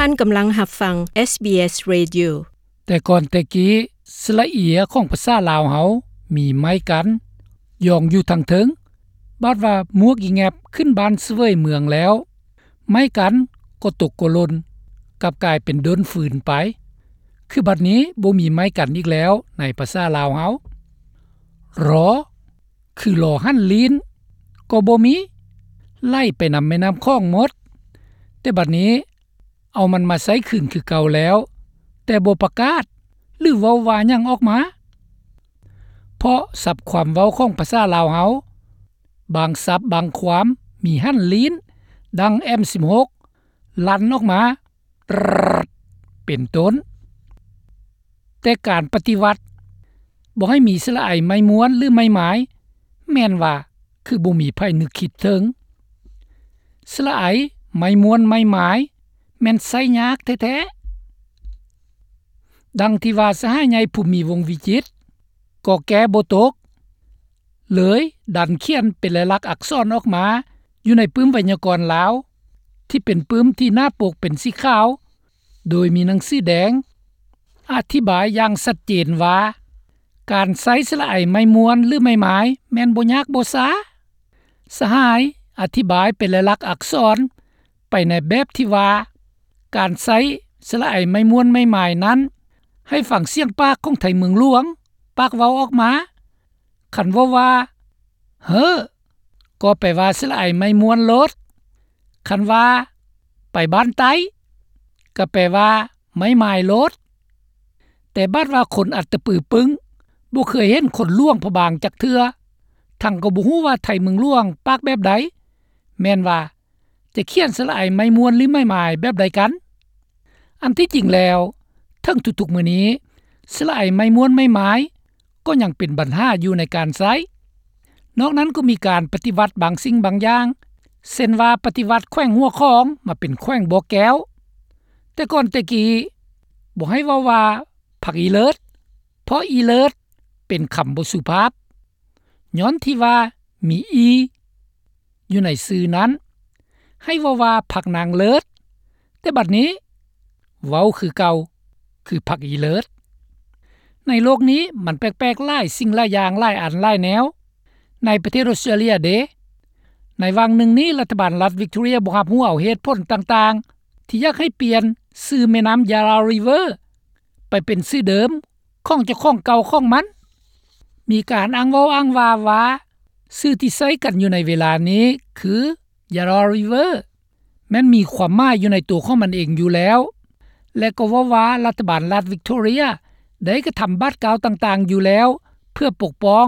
ທ່ານກຳລັງຮັບຟັງ ເອສບີເອສ Radio. ແຕ່ກ່ອນແຕ່ກີ້ ສະຫຼະເອຍຂອງພາສາລາວເຮົາມີໄມ້ກັນ ຢອງຢູ່ທາງເທິງ, ບາດວ່າໝວກອີ່ແງບຂຶ້ນບ້ານສະເຫວີຍເມືອງແລ້ວ ໄມ້ກັນກໍຕົກກໍຫຼົ່ນ ກັບກາຍເປັນດົນຟືນໄປ. ຄືບັດນີ້ບໍ່ມີໄມ້ກັນອີກແລ້ວໃນພາສາລາວເຮົາ. ລໍ ຄືລໍຫັນລີ້ນ ກໍບໍ່ມີ, ໄຫຼໄປນຳແມ່ນ້ຳຂອງໝົດ. ແຕ່ບັດນີ້ ເອົາມັນມາໃຊ້ຄືນຄືເກົ່າແລ້ວ, ແຕ່ບໍ່ປະກາດ ຫຼື ເວົ້າວ່າຫຍັງອອກມາ. ເພາະສັບຄວາມເວົ້າຂອງພາສາລາວເຮົາ, ບາງສັບບາງຄວາມມີຫັນລີ້ນ ດັ່ງ ເອັມສິບຫົກ ລັ່ນອອກມາ ເປັນຕົ້ນ. ແຕ່ການປະຕິວັດບໍ່ໃຫ້ມີສະຫຼະໄອໄມ້ມ້ວນ ຫຼື ໄມ້ໝາຍ ແມ່ນວ່າຄືບໍ່ມີໃຜນຶກຄິດເຖິງ. ສະຫຼະໄອໄມ້ມ້ວນໄມ້ໝາຍ ແມ່ນໃຊ້ຍາກແທ້ໆ. ດັ່ງທີ່ວ່າສະຫາຍໃຫຍ່ ພູມີ ວົງວິຈິດ ກໍແກ້ບໍ່ຕົກ ເລີຍດັນຂຽນເປັນລາຍລັກອັກສອນອອກມາຢູ່ໃນປຶ້ມໄວຍາກອນລາວ ທີ່ເປັນປຶ້ມທີ່ໜ້າປົກເປັນສີຂາວ ໂດຍມີໜັງສືແດງ ອະທິບາຍຢ່າງຊັດເຈນວ່າ ການໃຊ້ສະຫຼະໄອໄມ້ມ້ວນ ຫຼື ໄມ້ໝາຍ ແມ່ນບໍ່ຍາກບໍ່ຊ້າ. ສະຫາຍອະທິບາຍເປັນລາຍລັກອັກສອນ ໄປໃນແບບທີ່ວ່າ ການໃຊ້ສະຫຼະໄອໄມ້ມ້ວນໄມ້ໝາຍນັ້ນ ໃຫ້ຟັງສຽງປາກຂອງໄທເມືອງຫຼວງ ປາກເວົ້າອອກມາ. ຄັນເວົ້າວ່າ ເຮີ້ ກໍແປວ່າສະຫຼະໄອໄມ້ມ້ວນໂລດ, ຄັນວ່າ ໄປບ້ານໃຕ້ ກໍແປວ່າໄມ້ໝາຍໂລດ. ແຕ່ບາດວ່າຄົນອັດຕະປືປຶ້ງ ບໍ່ເຄີຍເຫັນຄົນຫຼວງພະບາງຈັກເທື່ອ, ທັງກໍບໍ່ຮູ້ວ່າໄທເມືອງຫຼວງປາກແບບໃດ, ແມ່ນວ່າ ຈະຂຽນສະຫຼະໄອໄມ້ມ້ວນ ຫຼື ໄມ້ໝາຍແບບໃດກັນ? ອັນທີ່ຈິງແລ້ວ ເຖິງທຸກໆມື້ນີ້ ສະຫຼະໄອໄມ້ມ້ວນໄມ້ໝາຍ ກໍຍັງເປັນບັນຫາຢູ່ໃນການໃຊ້. ນອກນັ້ນກໍມີການປະຕິວັດບາງສິ່ງບາງຢ່າງ, ເຊັ່ນວ່າປະຕິວັດແຂວງຫົວຂອງມາເປັນແຂວງບໍ່ແກ້ວ. ແຕ່ກ່ອນແຕ່ກີ້ ບໍ່ໃຫ້ເວົ້າວ່າຜັກອີເລີດ, ເພາະອີເລີດເປັນຄຳບໍ່ສຸພາບ. ຍ້ອນທີ່ວ່າມີອີຢູ່ໃນຊື່ນັ້ນ, ໃຫ້ເວົ້າວ່າຜັກນາງເລີດ, ແຕ່ບັດນີ້ເວົ້າຄືເກົ່າ ຄືຜັກອີເລີດ. ໃນໂລກນີ້ມັນແປກໆຫຼາຍສິ່ງຫຼາຍຢ່າງ, ຫຼາຍອັນຫຼາຍແນວ. ໃນປະເທດອົດສະຕຣາເລຍເດ, ໃນຫວ່າງໜຶ່ງນີ້ລັດຖະບານລັດວິກຕໍເຣຍບໍ່ຮັບຮູ້ເອົາເຫດຜົນຕ່າງໆ ທີ່ຢາກໃຫ້ປ່ຽນຊື່ແມ່ນ້ຳຢາຣາຣີເວີ ໄປເປັນຊື່ເດີມຂອງເຈົ້າຂອງເກົ່າຂອງມັນ. ມີການອ້າງເວົ້າອ້າງວ່າວ່າ ຊື່ທີ່ໃຊ້ກັນຢູ່ໃນເວລານີ້ຄືຢາຣາຣີເວີ ແມ່ນມີຄວາມໝາຍຢູ່ໃນຕົວຂອງມັນເອງຢູ່ແລ້ວ ແລະ ກໍເວົ້າວ່າລັດຖະບານລັດວິກຕໍເຣຍໄດ້ກະທຳບາດກ້າວຕ່າງໆຢູ່ແລ້ວ ເພື່ອປົກປ້ອງ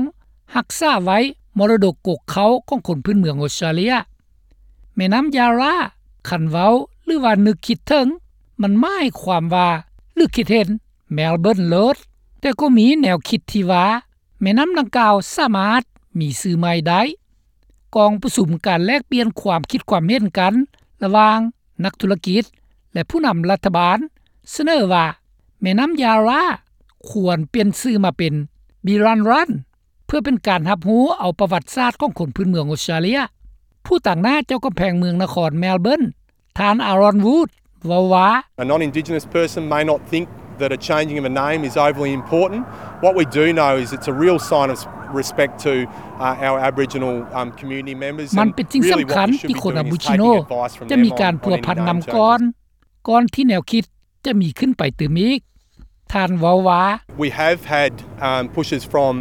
ຮັກສາໄວ້ມໍລະດົກກົກເຄົ້າຂອງຄົນພື້ນເມືອງອົດສະຕຣາເລຍ. ແມ່ນ້ຳຢາຣາ ຄັນເວົ້າ ຫຼືວ່ານຶກຄິດເຖິງ ມັນໝາຍຄວາມວ່າ ຫຼືຄິດເຫັນ ແມລເບີນໂລດ. ແຕ່ກໍມີແນວຄິດທີ່ວ່າ ແມ່ນ້ຳດັ່ງກ່າວສາມາດມີຊື່ໃໝ່ໄດ້. ກອງປະຊຸມການແລກປ່ຽນຄວາມຄິດຄວາມເຫັນກັນລະຫວ່າງນັກທຸລະກິດ ແລະ ຜູ້ນຳລັດຖະບານ ສະເໜີວ່າ ແມ່ນ້ຳຢາຣາ ຄວນປ່ຽນຊື່ມາເປັນ ບີຣັນຣັນ ເພື່ອເປັນການຮັບຮູ້ເອົາປະຫວັດສາດຂອງຄົນພື້ນເມືອງອົດສະຕຣາເລຍ. ຜູ້ຕາງໜ້າເຈົ້າກຳແພງເມືອງນະຄອນແມລເບີນ ທ່ານ ອາຣອນ ວູດ ເວົ້າວ່າ A non-Indigenous person may not think that a changing of a name is overly important. What we do know is it's a real sign of respect to, uh, our Aboriginal, um, community members. ມັນເປັນສິ່ງສຳຄັນທີ່ຄົນອາໂບຈິໂນຈະມີການພົວພັນນຳກ່ອນ ກ່ອນທີ່ແນວຄິດຈະມີຂຶ້ນໄປຕື່ມອີກ. ທ່ານເວົ້າວ່າ We have had, um, pushes from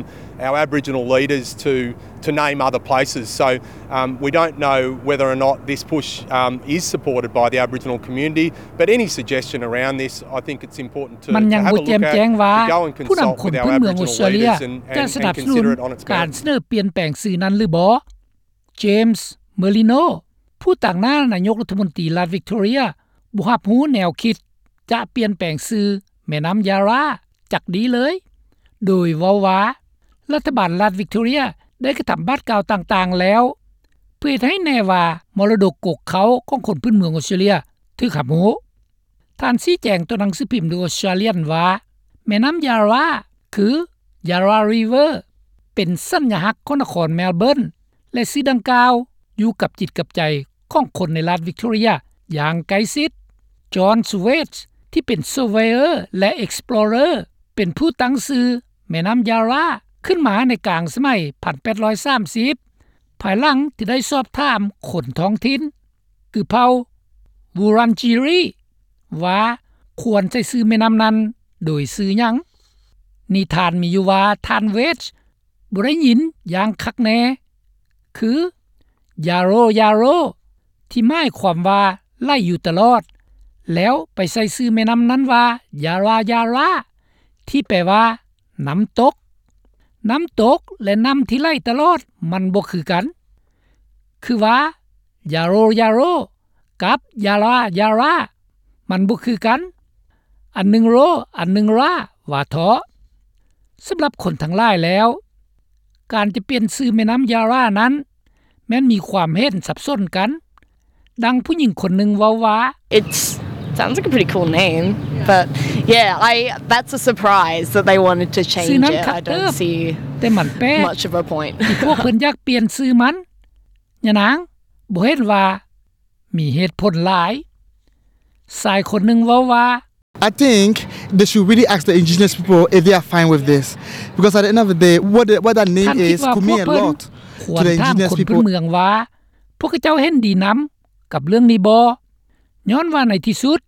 our Aboriginal leaders to, to name other places. So, um, we don't know whether or not this push, um, is supported by the Aboriginal community, but any suggestion around this, I think it's important to, ມັນຍັງບໍ່ແຈ່ມແຈ້ງວ່າ ຜູ້ນຳຄົນພື້ນເມືອງອົດສະຕຣາເລຍຈະສະໜັບສະໜູນການສະເໜີປ່ຽນແປງຊື່ນັ້ນຫຼືບໍ່. ເຈມສ໌ ເມີລິໂນ ຜູ້ຕາງໜ້ານາຍົກລັດຖະມົນຕີລັດວິກຕໍເຣຍ ບໍ່ຮັບຮູ້ແນວຄິດຈະປ່ຽນແປງຊື່ແມ່ນ້ຳຢາຣາຈັກດີ້ເລີຍ, ໂດຍເວົ້າວ່າ ລັດຖະບານລັດວິກຕໍເຣຍໄດ້ກະທຳບາດກ້າວຕ່າງໆແລ້ວ ເພື່ອເຮັດໃຫ້ແນ່ວ່າມໍລະດົກກົກເຄົ້າຂອງຄົນພື້ນເມືອງອົດສະຕຣາເລຍຖືກຮັບຮູ້. ທ່ານຊີ້ແຈງຕໍ່ໜັງສືພິມ The Australian ວ່າ ແມ່ນ້ຳຢາຣາ ຄື ຢາຣາຣີເວີ ເປັນສັນຍາລັກຂອງນະຄອນແມລເບີນ ແລະ ຊື່ດັ່ງກ່າວຢູ່ກັບຈິດກັບໃຈຂອງຄົນໃນລັດວິກຕໍເຣຍຢ່າງໃກ້ຊິດ. John Suez ທີ່ເປັນ surveyor ແລະ explorer ເປັນຜູ້ຕັ້ງຊື່ແມ່ນ້ຳ Yarra ຂຶ້ນມາໃນກາງສະໄໝ ໜຶ່ງພັນແປດຮ້ອຍສາມສິບ ພາຍຫຼັງທີ່ໄດ້ສອບຖາມຄົນທ້ອງຖິ່ນ ຄືເຜົ່າ Wurundjeri ວ່າຄວນໃຊ້ຊື່ແມ່ນ້ຳນັ້ນໂດຍຊື່ຫຍັງ. ນິທານມີຢູ່ວ່າ ທ່ານ Wedge ບໍ່ໄດ້ຍິນຢ່າງຄັກແນ່ ຄື Yarro Yarro ທີ່ໝາຍຄວາມວ່າໄຫຼຢູ່ຕະຫຼອດ ແລ້ວໄປໃສ່ຊື່ແມ່ນ້ຳນັ້ນວ່າ Yarra Yarra ທີ່ແປວ່ານ້ຳຕົກ. ນ້ຳຕົກ ແລະ ນ້ຳທີ່ໄຫຼຕະຫຼອດມັນບໍ່ຄືກັນ ຄືວ່າ Yarro Yarro ກັບ Yarra Yarra ມັນບໍ່ຄືກັນ ອັນໜຶ່ງ Ro ອັນໜຶ່ງ Ra ວ່າເທາະ. ສຳລັບຄົນທັງຫຼາຍແລ້ວ ການຈະປ່ຽນຊື່ແມ່ນ້ຳ Yarra ນັ້ນ ແມ່ນມີຄວາມເຫັນສັບສົນກັນ. ດັ່ງຜູ້ຍິງຄົນໜຶ່ງເວົ້າວ່າ It sounds like a pretty cool name, but yeah, I, that's a surprise that they wanted to change it. ຊື່ນັ້ນຄັກເຕີບ ແຕ່ມັນແປກ much of a point ທີ່ພວກເພິ່ນຢາກປ່ຽນຊື່ມັນ. ຍານາງບໍ່ເຫັນວ່າມີເຫດຜົນຫຼາຍ. ຊາຍຄົນໜຶ່ງເວົ້າວ່າ I think they should really ask the indigenous people if they are fine with this, because at the end of the day, what the, what that name is could mean a lot to the indigenous people. ທ່ານຄິດວ່າພວກເພິ່ນຄວນຖາມຄົນພື້ນເມືອງວ່າ ພວກເຂົາເຈົ້າເຫັນດີນຳກັບເລື່ອງນີ້ບໍ່? ຍ້ອນວ່າໃນທີ່ສຸດ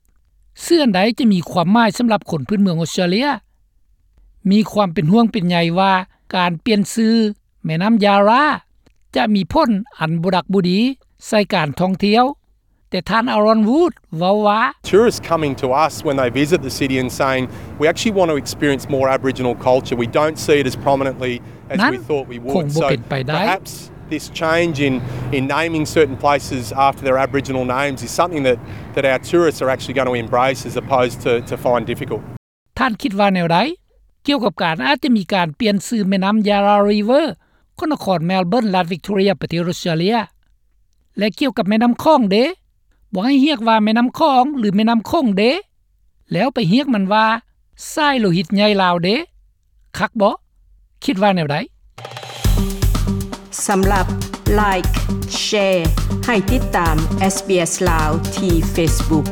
ຊື່ອັນໃດຈະມີຄວາມໝາຍສຳລັບຄົນພື້ນເມືອງອົດສະຕຣາເລຍ? ມີຄວາມເປັນຫ່ວງເປັນໃຍວ່າການປ່ຽນຊື່ແມ່ນ້ຳ Yarra ຈະມີຜົນອັນບໍ່ດັກບໍ່ດີໃສ່ການທ່ອງທ່ຽວ. ແຕ່ທ່ານ Aaron Wood ເວົ້າວ່າ Tourists coming to us when they visit the city and saying, "We actually want to experience more Aboriginal culture. We don't see it as prominently as we thought we would." ນັ້ນຄົງບໍ່ເປັນໄປໄດ້. So perhaps this change in, in naming certain places after their Aboriginal names is something that, that our tourists are actually going to embrace as opposed to, to find difficult. ທ່ານຄິດວ່າແນວໃດ ກ່ຽວກັບການອາດຈະມີການປ່ຽນຊື່ແມ່ນ້ຳ Yarra River ຂອງນະຄອນ Melbourne ລັດ Victoria ປະເທດອົດສະຕຣາເລຍ? ແລະ ກ່ຽວກັບແມ່ນ້ຳຂອງເດ? ບໍ່ໃຫ້ຮຽກວ່າແມ່ນ້ຳຂອງ ຫຼື ແມ່ນ້ຳຂົງເດ? ແລ້ວໄປຮຽກມັນວ່າ ສາຍໂລຫິດໃຫຍ່ລາວເດ? ຄັກບໍ່? ຄິດວ່າແນວໃດ? ສຳລັບ Like, Share ໃຫ້ຕິດຕາມ SBS ລາວ ທີ່ Facebook.